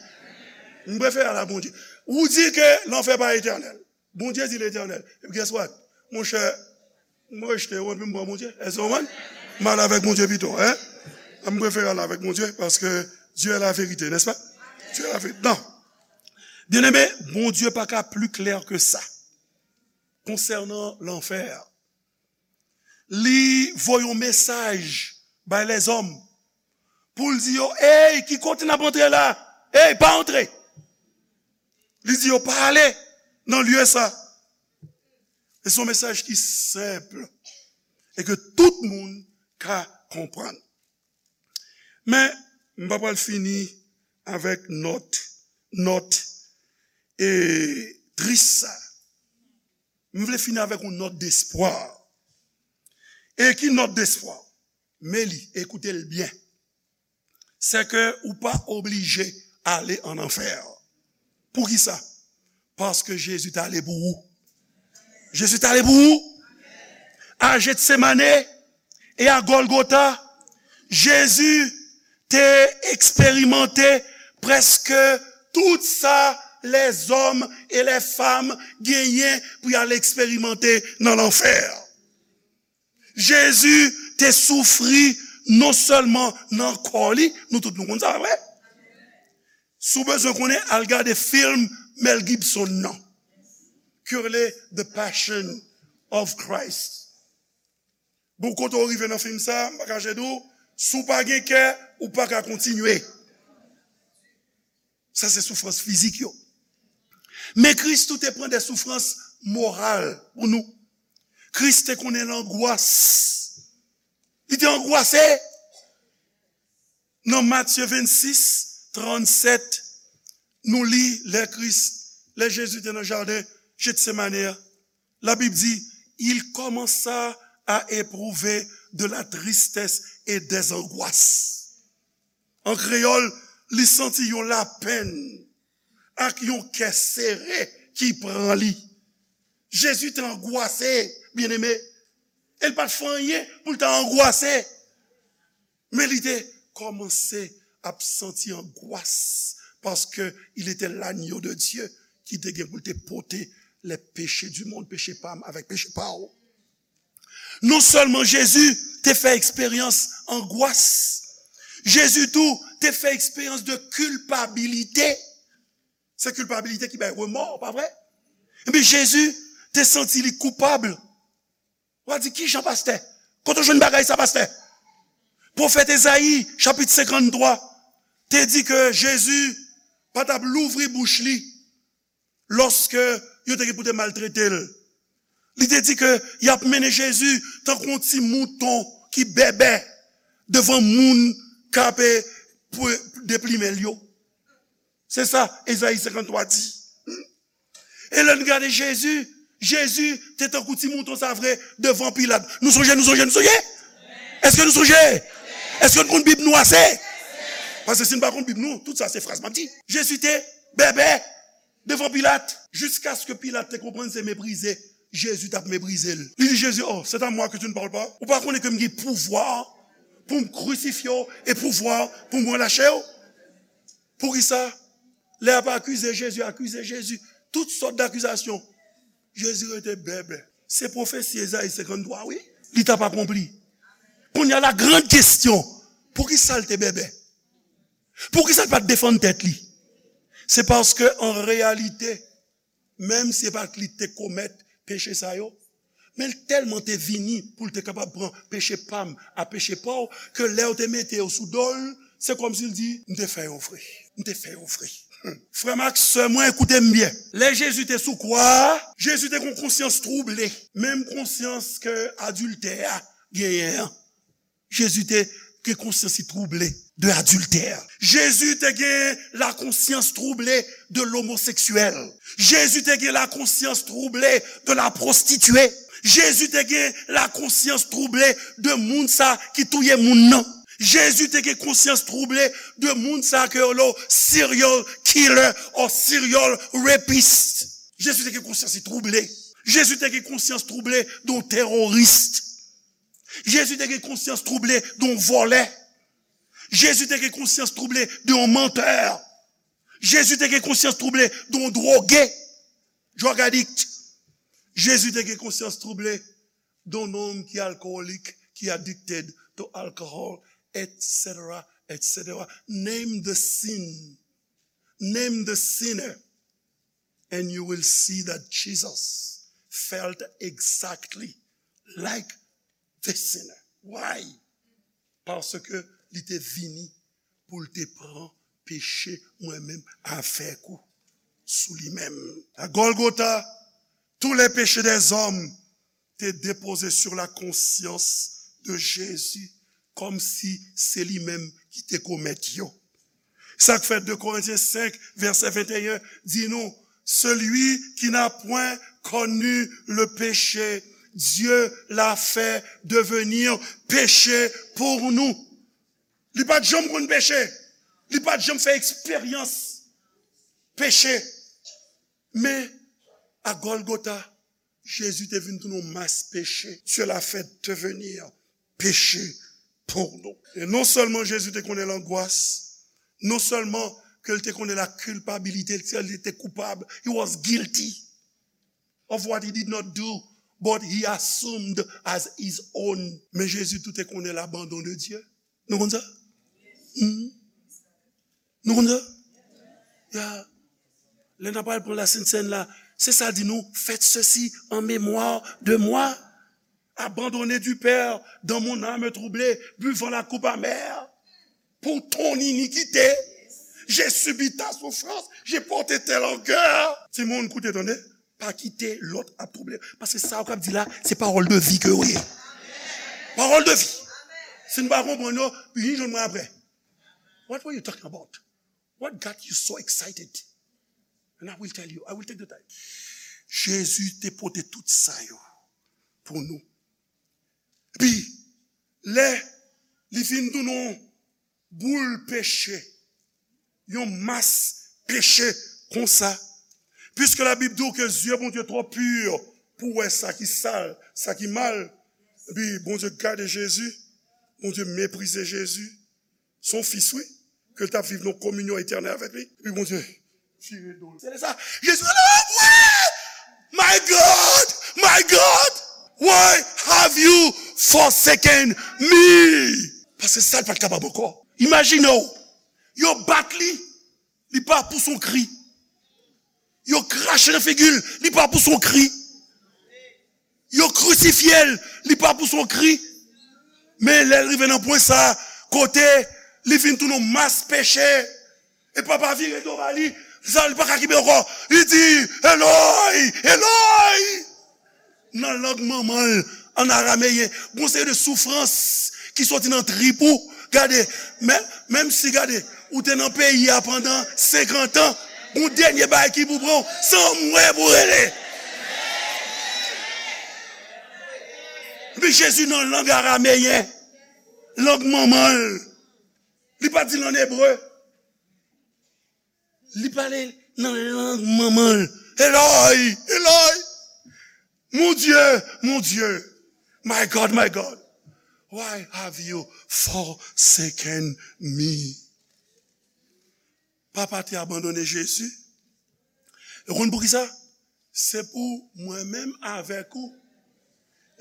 M prefere al a Bondye. Ou di ke lanfè pa etènèl. Bondye di l etènèl. Epi guess what? Monchè, m rejte w, epi m pran Bondye. Èske w konprann? M al avèk Bondye pito, en? M prefere al avèk Bondye, paske Dieu est la vérité, n'est-ce pas? Dieu est la vérité. Non. Byeneme, Bondye pa ka pli klè ke sa konsènan lanfè a. Li voye yon mesaj bay lèzòm pou l di yo, ey, ki kote n ap antre la? Ey, pa antre! Li di yo, pa ale nan lye sa. E se yon mesaj ki senp e ke tout moun ka konprann. Men, m pa pral fini avèk nòt, nòt, e, tris sa. M vle fini avèk yon nòt despwa. E ki nòt despwa? Men li, ekoute l byen. Se ke ou pa oblije ale an anfè. Poukisa? Paske Jezi t ale pou ou. Jezi t ale pou ou. A Jetsemane e a Gòlgota, Jezi te eksperimante prèske tout sa lèzòm e lèfanm genyen pou y al eksperimante nan lanfè. Jezi te soufri non sèlman nan kò li, nou tout nou konn sa, pa vre? Si w bezwen konnen, al gade fim Mel Gibson nan, ki rele The Passion of Christ. Bon, kote w rive nan fim sa, m pa kache di w, si w pa gen kè, ou pa ka kontinye. Sa se soufrans fizik yo. Men Kris tou te pran de soufrans moral pou nou. Kris te konnen langwas. Li te angwase. Nan Matye vennsis, trannsèt, nou li lè Kris, lè Jezi te nan jaden Jetsemane a, Labib di, il commença à éprouver de la tristesse et des angoisses. An kreyòl, li santi yon lapenn ak yon kè sere ki pran li. Jezi te angwase, byeneme. E l pa t fè anyen pou l ta angwase. Men li te kòmanse ap santi angwas, paske il était l'agneau de Dieu ki te gen pou l te pote les péchés du monde, peche pa m avèk peche pa w. Non sèlman Jezi te fè eksperyans angwas, Jezi tou te fè eksperyans de kilpabilite. Se kilpabilite ki bay remò, pa vre? Ebyen, Jezi te santi li koupab. W a di, kijan, pastè? Kote w jwenn bagay sa, pastè? Pwofèt Ezayi, chapit senkanntwa, te di ke Jezi pa t ap louvri bouch li lòske yo te gen pou te maltrete l. Li te di ke y ap mennen Jezi tankou yon ti mouton ki bèbè devan moun k ap, e, pou deplimen l yo. Se sa Ezayi senkanntwa di. E lè n gade Jezi, Jezi te tankou ti mouton sa vre devan Pilat. Nou sonje, nou sonje, nou sonje? Èske nou sonje? Èske nou konn Bib nou ase? Paske si n pa konn Bib nou, tout sa se fraz m ap di. Jezi te bèbè devan Pilat, jiskaske Pilat te konprann se meprize Jezi t ap meprize l. Li di Jezi, oh, c'est à moi que tu ne parles pas? Ou pa konnen ke m gen pouvwa pou m krisifye w e pouvwa pou m relache w? Poukisa? Lè y ap akize Jezi, akize Jezi, tout sòt dakizasyon. Jezi rete bèbè. Se pwofesi Ezayi senkanntwa, wi. Li t ap akonpli. Kounye a, la grande question, poukisa l te bèbè? Poukisa l pa t defann tèt li? Se paske, an reyalite, menm si se pa t li ki te komèt peche sa yo, men l tèlman te vini pou l te kapab pran peche pa m ak peche pa w, ke lè yo te mete yo sou do l, se kòmsi l di, "M te fè yo vre. M te fè yo vre." Frè m ak sè mwen, koute m byen. Lè Jezi te sou kwa a, Jezi te gen yon konsyans twouble, menm konsyans ke adiltè a genyen an. Jezi te gen konsyans li twouble de adiltè. Jezi te gen la konsyans twouble de lomoseksyèl. Jezi te gen la konsyans twouble de la pwostitye. Jezi te gen la konsyans twouble de moun sa ki touye moun nan. Jezi te gen konsyans twouble de moun sa ke yo rele serial killer or serial rapist. Jezi te gen konsyans li twouble. Jezi te gen konsyans twouble de yon teworis. Jezi te gen konsyans twouble de yon vòlè. Jezi te gen konsyans twouble de yon mantè. Jezi te gen konsyans twouble de yon dwoge, drug addict. Jezi te gen konsyans twouble de yon nonm ki alkolik, ki addicted to alcohol, et cetera, et cetera. Name the sin. Name the sinner. And you will see that Jesus felt exactly like the sinner. Why? Paske li te vini pou l te pran peche mwen menm avèk ou sou li menm. A Golgotha, tous les péchés des hommes te depoze sur la conscience de Jésus, kòmsi se li menm ki te komèt yo. Sa k fè de Korentyen senk, vèsè venteyen, di nou, celui qui n'a point connu le péché, Dieu l'a fait devenir péché pour nous. Li pa t janm konn peche. Li pa t janm fè eksperyans peche. Men, a Golgotha, Jezi te vin tounen yon mas peche. Dieu l'a fait devenir péché pour nous. E non sèlman Jezi te konnen langwas, non sèlman ke l te konnen la culpabilité, li te koupab, he was guilty of what he did not do, but he assumed as his own. Men Jezi tou te konnen l'abandon de Dieu. Nou konn sa? Hmm? Nou konn sa? Ya. Lè n ap al pran la Sent Sèn la, se sa l di nou, faites ceci en mémoire de moi. Abandonné du Père, dans mon âme troublée, buvant la coupe amère. Pour ton iniquité, j'ai subi ta souffrance, j'ai porté tes langueurs. Timoun, koute, tande. Pa kite lòt ap twouble. Paske sa w k ap di la, se pawòl de vi ke yo ye. Pawòl de vi. Si n pa konprann yo, vin jwenn mwen apre. What were you talking about? What got you so excited? And I will tell you, I will take the time. Jezi te pote tout sa yo pou nou. Epi, lè li fin tounen yon boul peche, yon mas peche konsa, puisque la Bib di w ke zye Bondye twò pi pou wè sa ki sal, sa ki mal, epi Bondye gade Jezi, Bondye meprize Jezi, se yon fis, wi, ke l t ap viv nan kominyon etènèl avèk li. Epi Bondye vire do l. Se lè sa, Jezi rele, "Oh, my God, my God, why have you forsaken me?" Paske sa l pa t kapab ankò. Imajine w, yo bat li, li pa pouse yon kri. Yo krache nan figi l, li pa pouse yon kri. Yo krisifye l, li pa pouse yon kri. Men lè l rive nan pwen sa, kote li vin tounen yon mas peche, e papa vire do ba li, sa li pa ka kenbe ankò. Li di, "Eloi, Eloi." Nan lang manman l, an arameyen, gon seri de soufrans ki soti nan trip ou. Gade, men, menm si, gade, ou te nan peyi a pandan senkant an, gon dènye bagay ki pou pran w, se anmwe pou rele. Epi Jezi nan lang arameyen, lang manman l. Li pa di l ann ebre. Li pale nan lang manman l. Eloi, Eloi, mon Dieu, mon Dieu, my God, my God, why have you forsaken me? Papa te abandone Jezi. E w konn poukisa? Se pou mwen menm avèk ou.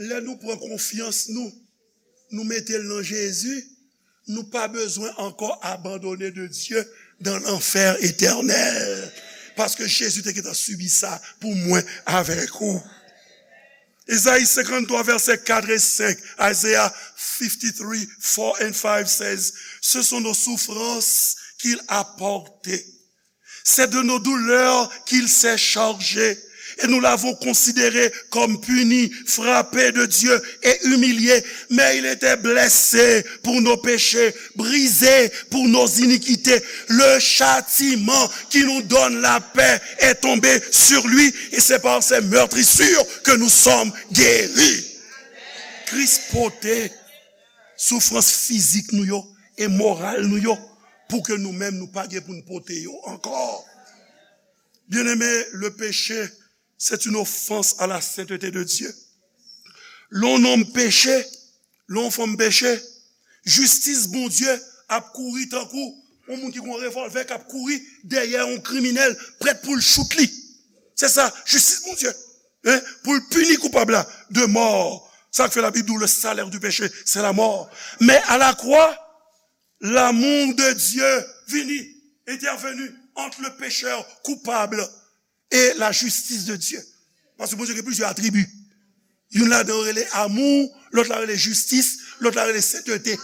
Lè nou pran konfyans nou, nou mete l nan Jezi, nou pa bezwen ankò abandone de Dye dan lanfè etènèl. Paske Jezi te gentan sibi sa pou mwen avèk ou. Ezayi senkanntwa, vèsè kat e senk, Isaiah fifty-three, four and five says, Ce sont nos souffrances qu'il a portées. C'est de nos douleurs qu'il s'est chargé. Et nous l'avons considéré comme puni, frappé de Dieu et humilié. Mais il était blessé pour nos péchés, brisé pour nos iniquités. Le châtiment qui nous donne la paix est tombé sur lui, et c'est par ses meurtrissures que nous sommes guéris. Kris pote soufrans fizik nou yo e moral nou yo, pou ke nou menm nou pa gen pou n pote yo ankò. Bien-aimé, le péché, c'est une offense à la sainteté de Dieu. Lè yon nonm peche, lè yon fanm peche, jistis Bondye ap kouri tankou yon moun ki gen yon revòlvè k ap kouri dèyè yon kriminèl, prèt pou l chout li. Se sa, jistis Bondye. Hein, pou l pini koupab la de mò. Sa k fè Labib di w, le salaire du péché, c'est la mort. Men a la kwa, l'amour de Dieu vini, entèveni ant le pécheur coupable et la justice de Dieu. Paske Bondye gen plizyè atribi. Youn ladan yo rele amou, lòt la rele jistis, lòt la rele sentete.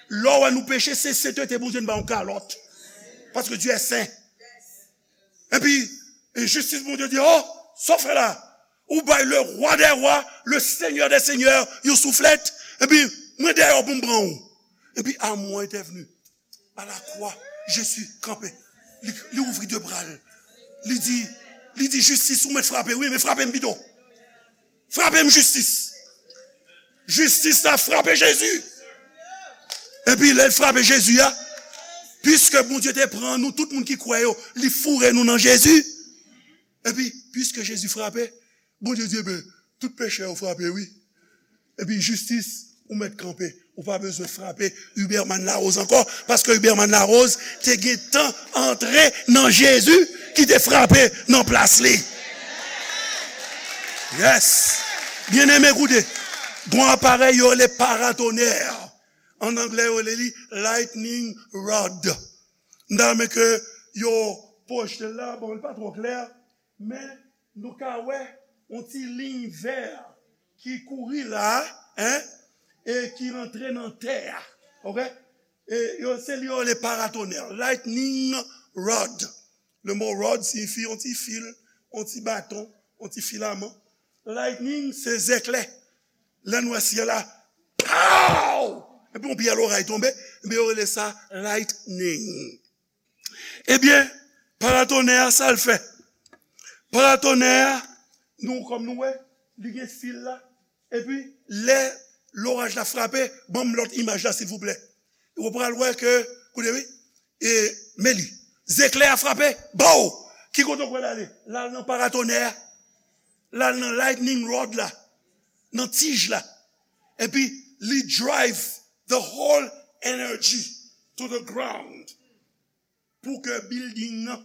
Lè w wè nou peche, se sentete Bondye n ba yon kalòt. Paske Dieu est saint. Epi, e jistis Bondye di, oh, sa w fè la? Ou bay le roi des rois, le seigneur des seigneurs, yon souflèt. Epi, mwen dèyè w pou m pran w. Epi, amou an entèvni. A la kwa, Jezi kanpe. Li, li ouvri de bra l. Li di, li di, jistis, ou mèt frape, wi, men frape m pito. Frape m, jistis. Jistis la frape Jezi. Epi lè l frape Jezi a, piske Bondye te pran nou, tout moun ki kwè yo, li foure nou nan Jezi. Epi, piske Jezi frape, Bondye di, ebyen, tout pechè yo frape, wi. Epi, jistis, ou mèt kanpe. Ou pa bezwen frape Huberman Larose ankò, paske Huberman Larose te gentan antre nan Jezi ki te frape nan plas li. Yes. Byeneme, koute. Gon aparèy yo rele paratonè. An anglè, yo rele li lightning rod. M ta renmen ke yo pwojte l la, bon, li pa twò klè, men nou ka wè yon ti liy vè ki kouri la, hein, e ki rantre nan tè a. Oke? E yo, se li yo rele paratonè, lightning rod. Le mot rod siyifi yon ti fil, yon ti baton, yon ti filaman. Lightning, se zèklè. Lè n wè syèl la, pow! Epi yon pyè loray tonbe, ebyen, yo rele sa lightning. Ebyen, paratonè a, sa l fè? Paratonè a, nou, kòm nou wè, li gen fil la. Epi, lè loraj la frape, ban m lòt imaj la, silvouplè. Ou pral wè ke, koute wi, e, men li, zeklè a frape, bow! Ki kote w kwè l ale? L al nan paratonè a. L al nan lightning rod la, nan tij la. Epi, li drive the whole energy to the ground. Pou ke building nan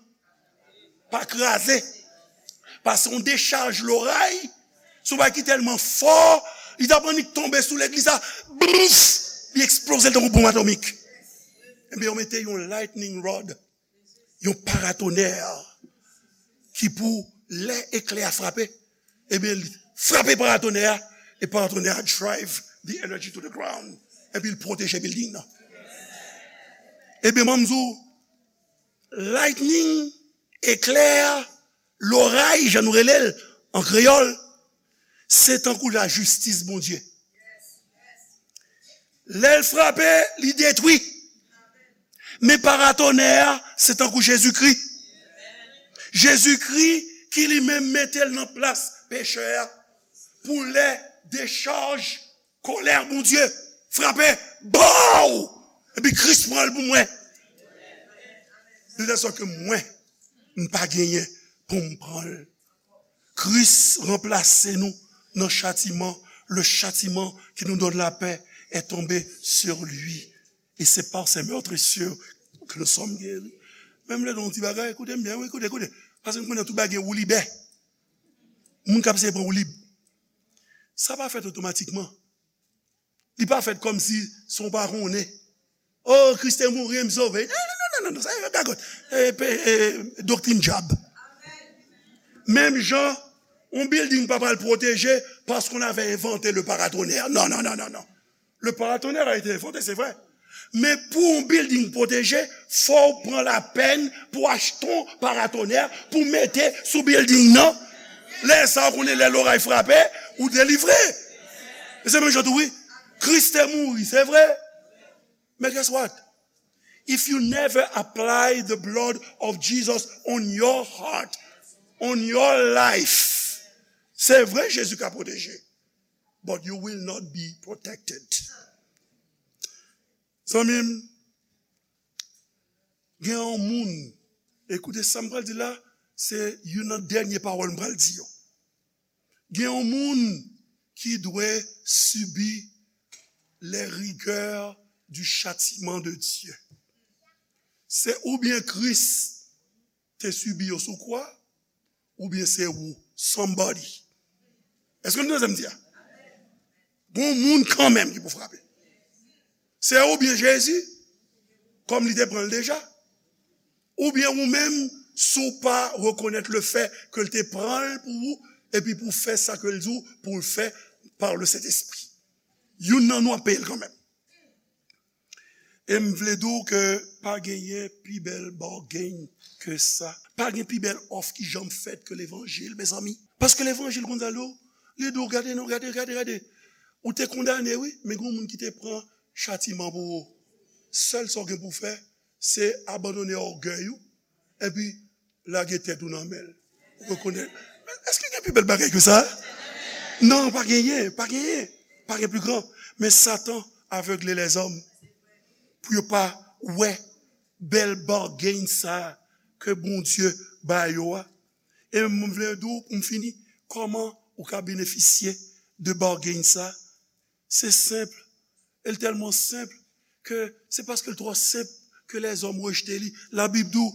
pa kraze. Paske yon dechaj loray, se yon bagay ki tèlman fò, li t ap annik tonbe sou legliz la, blouf, li eksploze l tankou bonm atomik. Ebyen, yo mete yon lightning rod, yon paratonè, ki pou lè eklè a frape, ebyen, li frape paratonè a, e paratonè a drive the energy to the ground, epi l pwoteje building nan. Ebyen, ban m di w, lightning, eklè, loray, jan nou rele l an kreyòl, se tankou lajistis Bondye. Lè l frape, li detwi. Men paratonè a, se tankou Jezikri. Jezikri ki li menm mete l nan plas pechè a. Pou lè dechaj kolè Bondye frape, bow! Epi Kris pran l pou mwen. De tèl sòt ke mwen, m pa genyen pou m pran l. Kris ranplase nou nan chatiman. Le châtiment qui nous donne la paix est tombé sur lui. Et c'est par ses meurtrissures que nous sommes guéris. Men m vle di w yon ti bagay, koute m byen, wi, koute, koute. Paske m konnen tout bagay gen woulibè. Moun k ap seye pran woulib. Sa pa fèt otomatikman. Li pa fèt kòmsi se w pa konnen. Oh, Kris te mouri, m sove. Non, non, non, non, non, sa se gagòt. E, pe- e, doktrin dyab. Menm jan, yon building pa pral pwoteje paske on avè envante le paratonnerre. Non, non, non, non, non. Le paratonnerre a été inventé, c'est vrai. Men pou yon building pwoteje, fò w pran lapèn pou achte yon paratonnerre pou mete sou building nan. Lè sa, w konnen lè loray frape, ou delivre. E se menm jan tou, wi. Kris te mouri, se vre. Men guess what? If you never apply the blood of Jesus on your heart, on your life, se vre Jezi ka pwoteje, but you will not be protected. Zanmi m, gen yon moun, ekoute sa m pral di la, se youn nan dènye pawòl m pral di yo. Gen yon moun ki dwe sibi les rigueurs du châtiment de Dieu. Se oubyen Kris te sibi yo sou kwa, oubyen se ou, somebody. Èske nou tande sa m di a? Gon moun kanmenm ki pou frape. Se oubyen Jezi, kòm li te pran l deja, oubyen ou menm, si w pa rekonèt le fè ke l te pran l pou ou, epi pou fè sa ke l di w pou l fè par le Saint-Esprit. Youn nan nou ap peye l kanmenm. E m vle di w ke pa genyen pi bèl bargain ke sa. Pa gen pi bèl òf ki janm fèt ke levanjil, mezanmi. Paske levanjil konn sa l di w, li di w, gade non, gade, gade, gade. Ou te kondane, wi, men gen yon moun ki te pran chatiman pou ou. Sèl sa w gen pou w fè, se abandone ògèy ou, epi lage tèt ou nan men l. Ou rekonèt. Men èske gen pi bèl bagay ke sa? Non, pa genyen, pa genyen. Pa gen pi gran. Men Satan avegle lèzòm pou yo pa wè bèl bargain sa ke Bondye ba yo a. E m vle di w, pou m fini, kòman ou ka benefisye de bargain sa? Se senp. E l tèlman senp ke se paske l twò senp ke lèzòm rejte li. La Bib di w,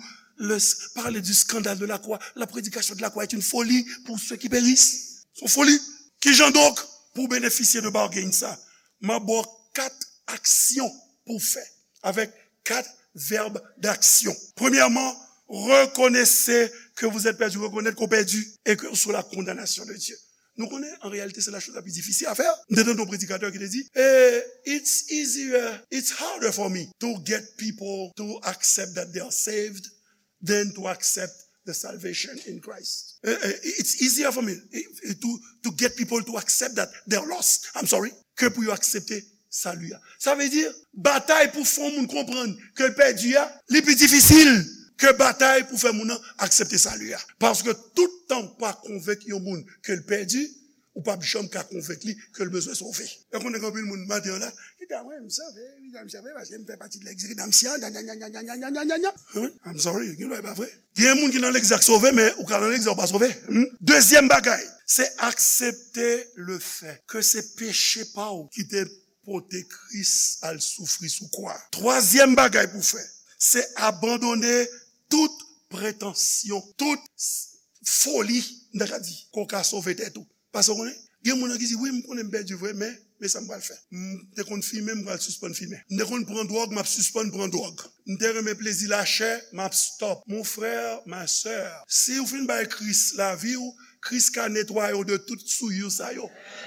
le, parler du scandale de la croix, la prédication de la croix est une folie pour ceux qui périssent. Se yon foli. Kijan donk pou w benefisye de bargain sa? M ap ba w kat aksyon pou w fè, avec quatre verbes d'action. Premièrement, reconnaissez que vous êtes perdu. Reconnaître qu'on perdu et que sous la condamnation de Dieu. Nou konnen, an reyalite, se la chose la plus difficile à faire. M te tande yon predikatè ki te di, eh, it's easier, it's harder for me to get people to accept that they are saved than to accept the salvation in Christ. Eh, eh, it's easier for me, eh, to, to get people to accept that they're lost. I'm sorry. Ke pou yo aksepte sali a. Sa vle di, batay pou fè yon moun konprann ke l pèdi a, li pi difisil ke batay pou fè moun nan aksepte sali a. Paske tout tan w pa konvenk yon moun ke l pèdi, ou p ap janm ka konvenk li ke l bezwen sove. E konnen gen anpil moun maten an la, ki ta mwen, m sove, wi, m sove, paske m fè pati de lèg redemption, nya, nya, nya. Wi, I'm sorry, gen lwa e pa vre. Gen moun ki nan lèg sa k sove, men ou ka nan lèg sa ou pa sove. Hmm? Dezyèm bagay, se aksepte le fè ke se peche pa w ki te pote Kris al soufri sou kwa. Twazyèm bagay pou fè, se abandone tout pretansyon, tout s- foli, m ta ka di, ke w ka sove tèt ou. Paske w konnen, gen moun nan ki di, wi, m konnen m pèdi vre, men, men sa m pral fè. M te konn fimen, m pral sispann fimen. M te konn pran dwòg, m ap sispann pran dwòg. M te renmen plezi lachè, m ap stop. Mon frè, ma sè, si w fin bay Kris lavi w, Kris ka netwaye w de tout souillure sa yo.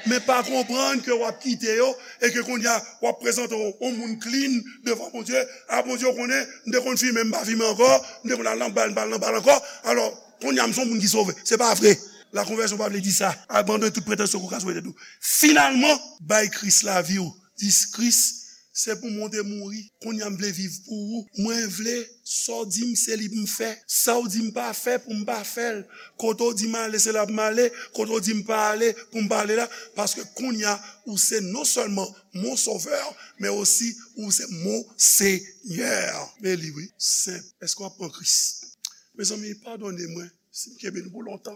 Men pa konprann ke w ap kite yo e ke kounye a w ap prezante w yon moun clean devan Bondye. A, Bondye, w konnen, m te konn fimen, m pa fimen ankò, m te konn al nan bal, m pa al nan bal ankò. Alò, kounye a m se yon moun ki sove. Se pa vre. Lakonvèsyon pa vle di sa. Abandone tout pretansyon ke w ka sove tèt ou. Finalman, bay Kris lavi w. Di, Kris, se pou mwen w te mouri. Kounye a m vle viv pou ou. Mwen vle sa w di m se li pou m fè. Sa w di m pa fè pou m pa fè l. Kote w di m ale se la pou m ale. Kote w di m pa ale pou m pa ale la. Paske kounye a ou se non sèlman mon sovè, men osi ou se mon senyè. Men li wi, senp. Èske w ap pran Kris? Mezanmi, padone mwen si m kenbe nou pou lontan.